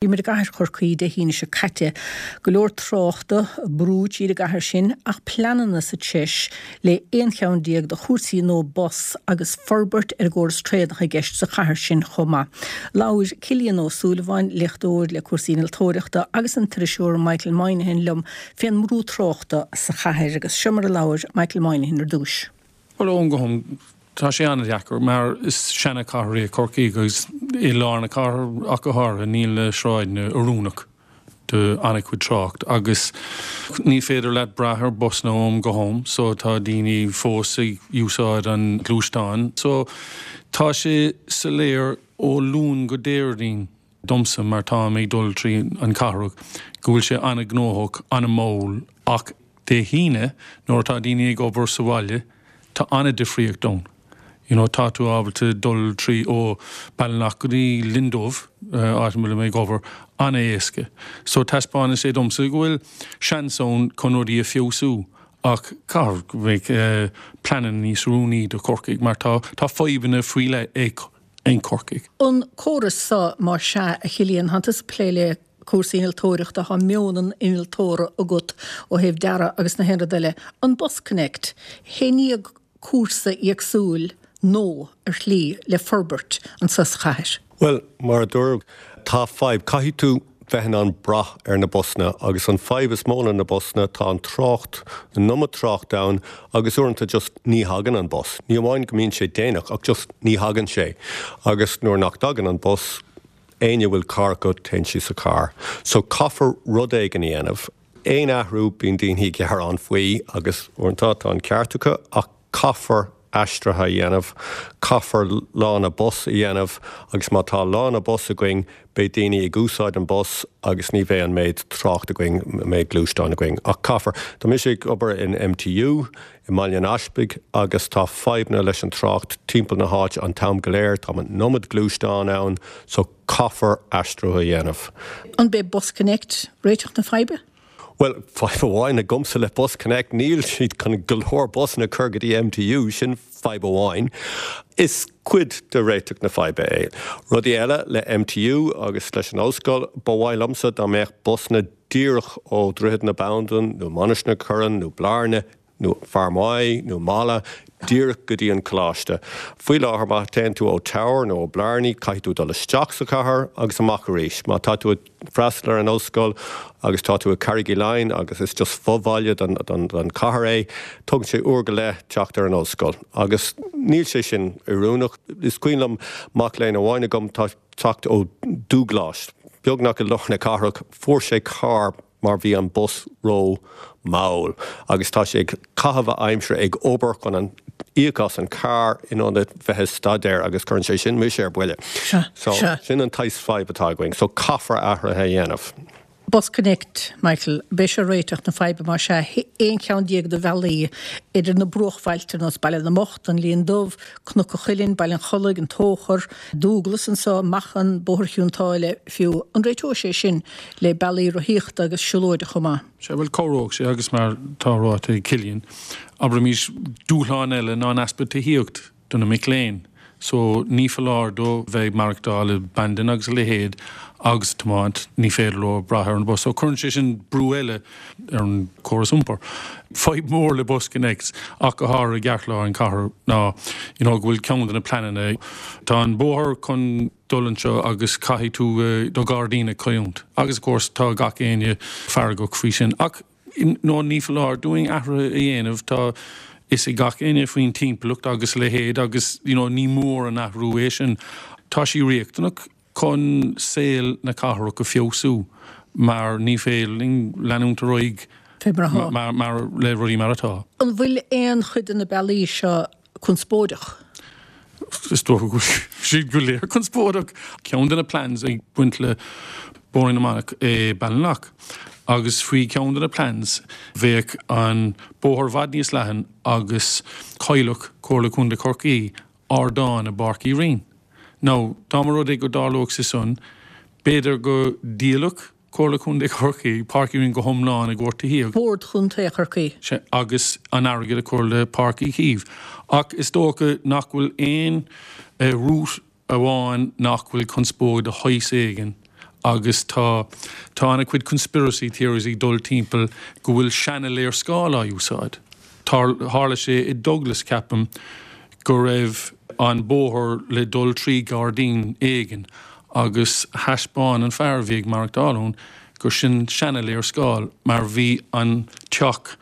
Bhí muid i gcathair Chorcaí Dé hAoine seo caite. Go leor tráchta, brú tríd an gcathair sin ach pleananna sa treis le 11 cheann de chúrsaí nua bus agus forbairt ar an gcóras traenach i gceist sa chathair sin chomh maith. Labhair Cillian Ó Súilleabháin, léachtóir le cúrsaí innealtóireachta agus an t-iriseoir Michael Moynihan liom fén mbrú tráchta sa chathair agus seo mar a labhair Michael Moynihan ar dtúis. Bhuel, ón go hom, tá sé an-deacair mar is seana-chathair é Corcaigh agus i lár na cathrach ach go háirithe níl na sráideanna oiriúnach do an-chuid trácht agus ní féidir leat brath ar busanna ó am go ham so tá daoine fós ag úsáid an gluaisteáin so tá sé soiléir ó Luan go Déardaoin. domsa mar táim ag dul trí an cathrach go bhfuil sé an-ghnóthach, an-mhall ach Dé hAoine nuair atá daoine ag obair sa bhaile tá an-difríocht ann. You know tá tú ábalta dul trí ó Ballinlough go dtí Linn Dubh, áit a bhfuil mé ag obair, an-éasca. So taispeánann sé domsa go bhfuil seans ann chun rudaí a feabhsú ach caithfidh go mbeidh pleananna níos oiriúnaí do Chorcaigh mar tá tá fadhbanna faoi leith ag ag Corcaigh. An córas so, más ea, a Chillian, thánn tusa ag plé le cúrsaí innealtóireachta, thá meon an innealtóra agat ó thaobh dearadh agus na haon rud eile. An BusConnect, i ndiaidh cúrsa éagsúil nó ar shlí le forbairt anso sa chathair? Bhuel, mar a dúradh, tá fadhb. Caithfidh tú bheith in ann brath ar na busanna agus an fadhb is mó le na busanna, tá an trácht, an iomad trácht ann agus uaireanta just ní thagann an bus. Ní amháin go mbíonn sé déanach ach just ní thagann sé agus nuair nach dtagann an bus, éinne a bhfuil carr acu, téann siad sa charr. So caithfear rud éigin a dhéanamh. Aon athrú, bíonn daoine ag gearán faoi agus uaireanta tá an ceart acu ach caithfear aistrithe a dhéanamh, caithfear lána bus a dhéanamh agus má tá lána bus againn beidh daoine ag úsáid an bus agus ní bheidh an méid trácht againn, an méid gluaisteáin againn. Ach caithfear. Tá mise ag obair in MTU i mBaile an Easpaig agus tá fadhbanna leis an trácht timpeall na háite an t-am go léir, tá an iomad gluaisteán ann so caithfear aistriú a dhéanamh. An b'é BusConnect réiteach na faidhbe? Bhuel, fadhb amháin agamsa le BusConnect, níl siad chun go leor busanna a chur go dtí MTU, sin fadhb amháin. Is cuid de réiteach na faidhbe é. Rudaí eile le MTU agus leis an ollscoil, ba mhaith liomsa dá mbeadh busanna díreach ó Dhroichead na Bandan nó Mainistir na Corann nó Blarney nó Fear Maí nó Mala, díreach go dtí an coláiste. Faoi láthair, má théann tú ó Teamhair nó ó Blarney, caithfidh tú dul isteach sa chathair agus amach arís. Má tá tú ag freastal ar an ollscoil agus tá tú i Carraig Uí Leighin agus is just fo-bhaile den chathair é, tógann sé uair go leith teacht ar an ollscoil. Agus níl sé sin oiriúnach. Is cuimhin liom mac léinn amháin agam, tá teacht ó Dúghlais, beagnach i lár na cathrach, fuair sé carr, mar bhí an bus ró mall agus tá sé ag caitheamh a aimsire ag obair chun an íoc as an carr in ionad bheith ag staidéar agus cuireann sé sin mise ar buile. So sin an tsaghas fadhb atá againn. So caithfear athruithe a dhéanamh. BusConnect, Michael, b'é seo réiteach na faidhbe más ea, 11 cheann de bhealaí idir na bruachbhailte ar nós Baile na mBocht, an Linn Dubh, Cnoc an Chuilinn, Baile an Chollaigh, an Tóchar, Dúglas anso, Machan, Bóthar Chionn tSáile fiú. An réiteoidh sé sin le bealaí rothaíochta agus siúlóide chomh maith. Sea, bhuel, cabhróidh sé agus mar tá ráite ag Cillian, abraimis, dúshlán eile ná an easpa tithíocht do na mic léinn. So, ní foláir dó bheith ag maireachtáil i Bandon agus a leithéid agus tiomáint, ní féidir leo brath ar an bus. So, cuireann sé sin brú eile ar an córas iompair. Fadhb mhór le BusConnects ach go háirithe i gceartlár an chathair ná, you know, go bhfuil ceann de na pleananna, tá an bóthar chun, dul anseo agus caithfidh tú do ghairdín a chailliúint. Agus of course tá gach éinne feargach faoi sin. Ach no ní foláir dúinn athruithe a dhéanamh, tá fhios ag gach éinne faoin timpeallacht agus a leithéid agus you know ní mór an athrú é sin. Tá sí riachtanach chun saol na cathrach a feabhsú mar ní féidir linn leanúint ar aghaidh mar le rudaí mar atá. An bhfuil aon chuid de na bealaí seo conspóideach. Is dócha go bhfuil siad go léir conspóideach. Ceann de na plans ag baint le Bóithrín na Manach é Ballinlough agus faoi cheann de na plans bheadh an bóthar i bhfad níos leathan agus chaillfeadh Comhairle Contae Chorcaí ardán i bPáirc Uí Rinn. Now dá mba rud é go dtarlódh sé san b'fhéidir go ndíolfadh Comhairle Contae Chorcaí, Páirc Uí Rinn go hiomlán i gcomhair tithíocht. Bord Chontae Chorcaí. Sea, agus an airgead a chur le Páirc Uí Chaoimh. Ach is dócha nach bhfuil aon route amháin nach bhfuil conspóid de shaghas éigin. Agus tá, tá an-chuid conspiracy theories ag dul timpeall go bhfuil seana-léarscáil á úsáid. Tharla sé i Douglas, ceapaim, go raibh an bóthar le dul trí ghairdín éigin agus thaispeáin an fear a bhí ag maireachtáil ann gur sin seana-léarscáil mar bhí an teach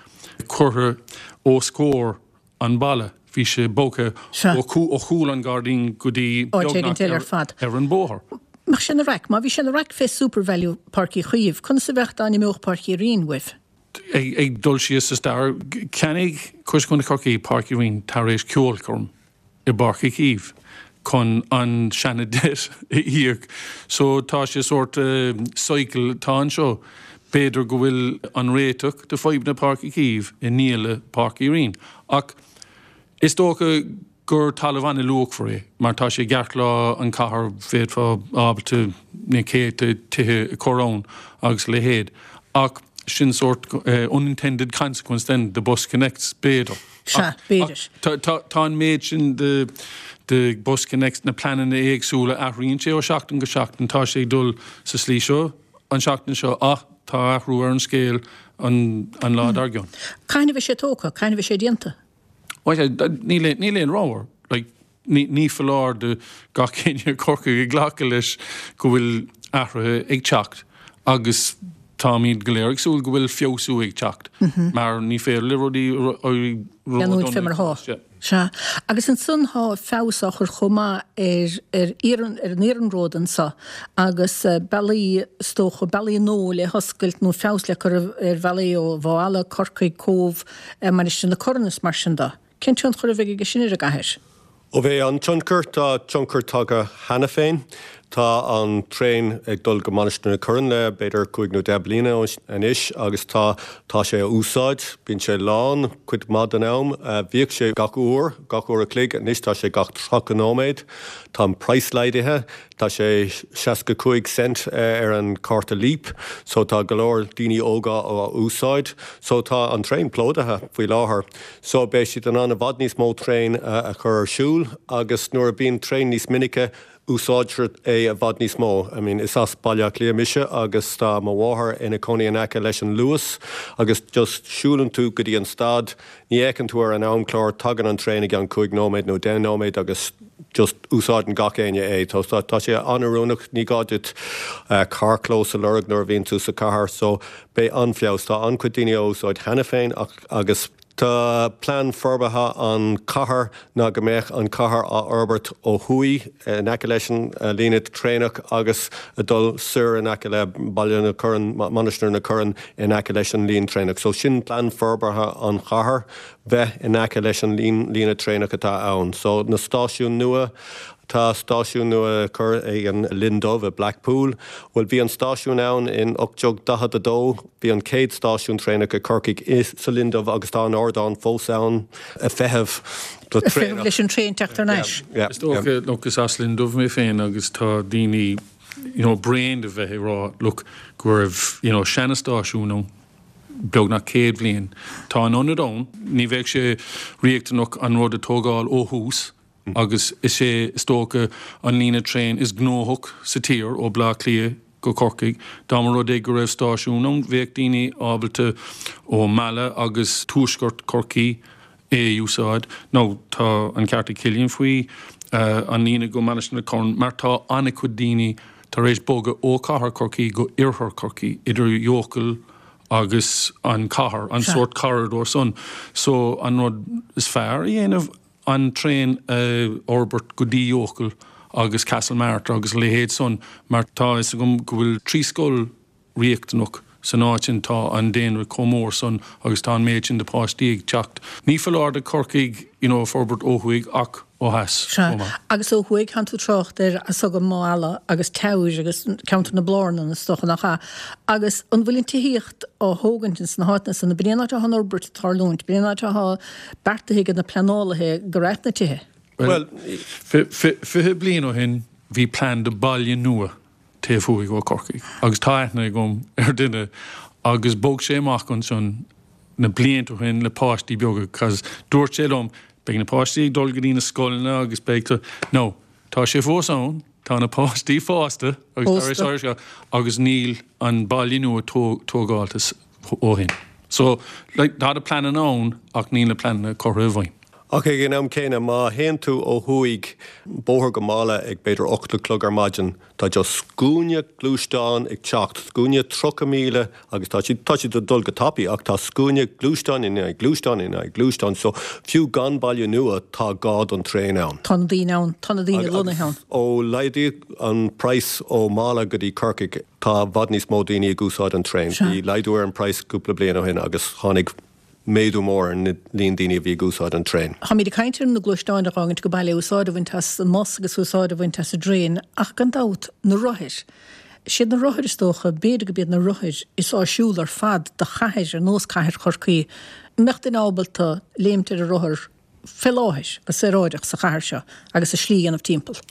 curtha os comhair an balla. Bhí sé bogtha ó chúl an ghairdín go dtí beagnach ar an bóthar. Mbeadh sé ina raic? Má bhí sé ina raic fé Supervalu Páirc Uí Chaoimh, conas a bheadh dá n-imeodh Páirc Uí Rinn uaibh? Ag dul síos sa stair, cheannaigh Comhairle Contae Chorcaí Páirc Uí Rinn tar éis ceolchoirm i bPáirc Uí Chaoimh chun an seana debt a íoc. So tá sé sórt cycle atá anseo. B'fhéidir go bhfuil an réiteach do fadhbanna Páirc Uí Chaoimh i ndíoladh Páirc Uí Rinn. Ach is dócha gur talamh an-luachmhar é mar tá sé i gceartlár an chathair, bhféadfá ábalta na céadta tithe a chur ann agus a leithéid. Ach sin sórt unintended consequence then de BusConnects, b'fhéidir. Sea, b'fhéidir. Tá an méid sin de BusConnects, na pleananna éagsúla, athraíonn sé ó sheachtain go seachtain, tá sé ag dul sa slí seo an seachtain seo ach tá athrú ar an scéal an lá dár gcionn. Cathain a bheidh sé tógtha? Cathain a bheidh sé déanta? Bhuel, níl aon rogha. Like, ní foláir do gach éinne i gCorcaigh ag glacadh leis go bhfuil athruithe ag teacht agus táimid go léir ag súil go bhfuil feabhsú ag teacht mar ní féidir le rudaí éirí Leanúint fé mar atá. Sea. Agus ansan thá feabhas á chur chomh maith ar ar an iarnród anso agus bealaí, is dócha, bealaí nua le hoscailt nó feabhas le cur ar bhealaí ó Mhaigh Eala, Corcaigh, Cóbh, Mainistir na Corann is mar sin de. Cén tionchar a bheidh aige sin ar an gcathair? Ó bheidh an-tionchar, tá tionchar tagtha cheana féin. Tá an traein ag dul go Mainistir na Corann le b'fhéidir cúig nó deich bliana anois agus tá tá sé á úsáid. Bíonn sé lán cuid mhaith den am. Bhíodh sé gach uair, gach uair a chloig, anois tá sé gach 30 nóiméad. Tá an praghas laghdaithe. Tá sé 65 cent ar an cárta Leap so tá go leor daoine óga á úsáid. So tá an traein plódaithe faoi láthair. So beidh siad in ann i bhfad níos mó traein a chur ar siúl agus nuair a bíonn traein níos minice úsáidtear é i bhfad níos mó. I mean is as Baile Átha Cliath mise agus tá mo mháthair ina cónaí in aice leis an Luas agus just siúlann tú go dtí an stad, ní fhéachann tú ar an amchlár, tagann an traein i gceann cúig nóiméad nó deich nóiméad agus just úsáideann gach éinne é. Tá sé an-oiriúnach, ní gá duit carrchlós a lorg nuair a bhíonn tú sa chathair so beidh an-fheabhas. Tá an-chuid daoine á úsáid cheana féin ach agus tá plean forbartha an chathair ná go mbeadh an chathair á fhorbairt ó thuaidh in aice leis an líne traenach agus ag dul soir in aice le Baile na Corann, Mainistir na Corann in aice leis an líne traenach. So sin plean forbartha an chathair. bheith in aice leis an líne traenach atá ann. So, na stáisiúin nua, tá stáisiún nua curtha ag an Linn Dubh i Blackpool. Bhuel, bhí an stáisiún ann in 1842, bhí an chéad stáisiún traenach i Corcaigh i sa Linn Dubh agus tá an ardán fós ann ag feitheamh do traenach. Ag feitheamh leis an traein teacht thar n-ais. Yeah, yeah. Is dócha, look, is as Linn Dubh mé féin agus tá daoine, you know, bréan de bheith ag rá, look, go raibh, you know, seana-stáisiún ann. beagnach 100 bhliain. Tá an ionad ann, ní bheadh sé riachtanach an rud a tógáil ó thús agus is é is dócha an líne traein is gnóthach sa tír ó Bleá Cliath go Corcaigh. Dá mba rud é go raibh stáisiún ann bheadh daoine ábalta ó Mala agus tuaisceart Chorcaí é a úsáid. Now tá an ceart ag Cillian faoi an líne go Mainistir na Corann mar tá an-chuid daoine tar éis bogadh ó chathair Chorcaí go oirthear Chorcaí, idir Eochaill agus an chathair, an sórt corridor san. So an rud is fearr a dhéanamh an traein a fhorbairt go dtí Eochaill agus Castlemartyr agus a leithéid san mar tá fhios agam go bhfuil 3 scoil riachtanach san áit sin. Tá an daonra chomh mór san agus tá an méid sin de páistí ag teacht. Ní foláir do Chorcaigh you know forbairt ó thuaidh ach ó theas Sea, chomh maith. agus ó thuaidh, tánn tú ag trácht ar fhios agam Maigh Eala agus Teamhair agus ceantar na Blárnan is dócha, nach ea? Agus an bhfuil an tithíocht á thógaint ins na háiteanna san? B'in é an áit atá an fhorbairt ag tarlúint, b'in é an áit atá beartaithe ag na pleanálaithe go raibh na tithe. Bhuel, 20 bliain ó shin bhí plean do baile nua taobh thuaidh ó Corcaigh agus tá aithne agam ar duine agus bhog sé amach ansan na blianta ó shin le páistí beaga cause dúirt sé liom beidh na páistí ag dul go dtí na scoileanna agus beidh tú no tá sé fós ann. Tá na páistí fásta agus tar éis agus níl an baile nua tógálta ó shin. So, like, tá na pleananna ann ach níl na pleananna curtha i bhfeidhm. Ach ag an am céanna, má théann tú ó thuaidh bóthar go Mala ag b'fhéidir 8 a chlog ar maidin, tá just scuaine gluaisteán ag teacht, scuaine 30,000 agus tá siad, tá siad ag dul go tapaidh ach tá scuaine gluaisteán i ndiaidh gluaisteán i ndiaidh gluaisteán so fiú gan baile nua tá gá don traein ann. Tá na daoine ann, tá na daoine lonnaithe ann. Ó laghdaíodh an praghas ó Mala go dtí Corcaigh, tá i bhfad níos mó daoine ag úsáid an traein. Bhí laghdú ar an praghas cúpla bliain ó shin agus tháinig méadú mór ar an líon daoine a bhí ag úsáid an traein. Táimid ag caint ar na gluaisteáin a dh'fhágaint go baile, úsáid a bhaint as an mbus agus úsáid a bhaint as an dtraein ach gan dabht, na rothair. Siad na rothair is dócha, b'fhéidir gurb iad na rothair is áisiúla ar fad do chathair ar nós cathair Chorcaí. An mbeadh duine ábalta léimt ar a rothar fé láthair, go saoráideach sa chathair seo agus a slí a dhéanamh timpeall.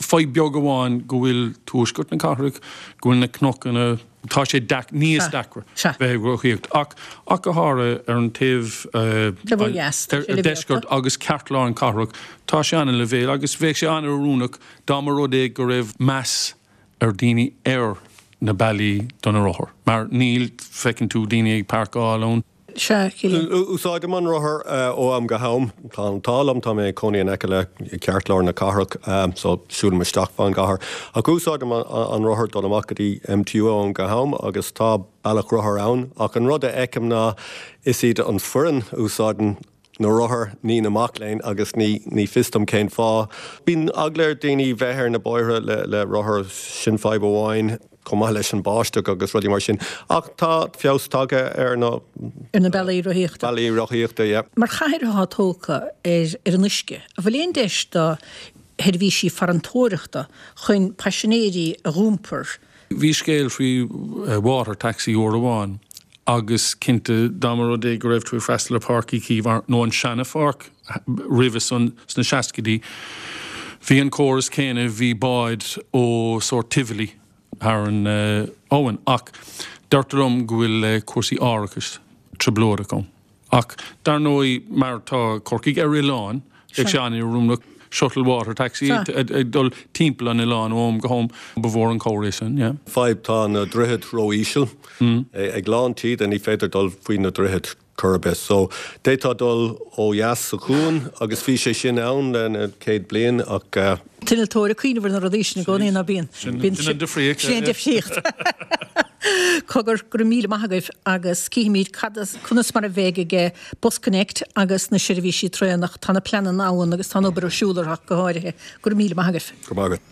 Fadhb beag amháin go bhfuil tuaisceart na cathrach, go bhfuil na cnocanna, tá sé níos deacra bheith ag rothaíocht ach ach go háirithe ar an taobh ar deisceart agus ceartlár an cathrach, tá sé an-leibhéal agus bheadh sé an-oiriúnach dá mba rud é go raibh meas ar daoine ar na bealaí do na rothair mar níl, feiceann tú daoine ag páirceáil ann. Sea, Cillian. Úsáidim an rothar ó am go ham. Tá an t-ádh liom, tá mé ag cónaí in aice le ceartlár na cathrach, so siúlaim isteach fán gcathair. Ach úsáidim an rothar dul amach go dtí MTU ó am go ham agus tá bealach rothar ann. Ach an rud a fheicim ná is iad an foireann a úsáideann na rothair, ní na mac léinn agus ní ní fios dom cén fáth. Bíonn eagla ar daoine bheith ar na bóithre le le rothar, sin fadhb amháin. chomh maith leis an báisteach agus rudaí mar sin. Ach tá feabhas tagtha ar na. Ar na bealaí rothaíochta. Bealaí rothaíochta, yeah. Mar chathair atá tógtha ar ar an uisce, an bhfuil aon deis do sheirbhísí farantóireachta chun paisinéirí a dh'iompar? Bhí scéal faoi water taxi uair amháin agus cinnte dá mba rud é go raibh tú ag freastal ar Páirc Uí Chaoimh nó an seana pháirc roimhe san sna seascaidí, bhí an córas céanna, bhí báid ó sórt Tivoli thar an abhainn ach deirtear liom go bhfuil cúrsaí árachais trioblóideach ann. Ach dar ndóigh, mar tá Corcaigh ar oileán, bheadh sé an-oiriúnach shuttle water taxi ag dul timpeall an oileáin ó am go ham. Ba mhór an cabhair é sin, yeah. Fadhb, tá na droichid ró-íseal. Ag lán taoide ní féidir dul faoi na droichid chor ar bith. So, d'fhéadfá dul ó dheas sa chuan agus bhí sé sin ann le na céad bliain ach. T-innealtóir ag cuimhneamh ar na rudaí sin i gcónaí, ná bíonn? Sin an difríocht. Sin an difríocht. Cogar, go raibh míle maith agaibh agus cífimid cad as, conas mar a bheidh ag BusConnect agus na seirbhísí traenach. Tá na pleananna ann agus tá an obair ar siúl orthu ach go háirithe. Go raibh míle maith agaibh. Go raibh maith agat.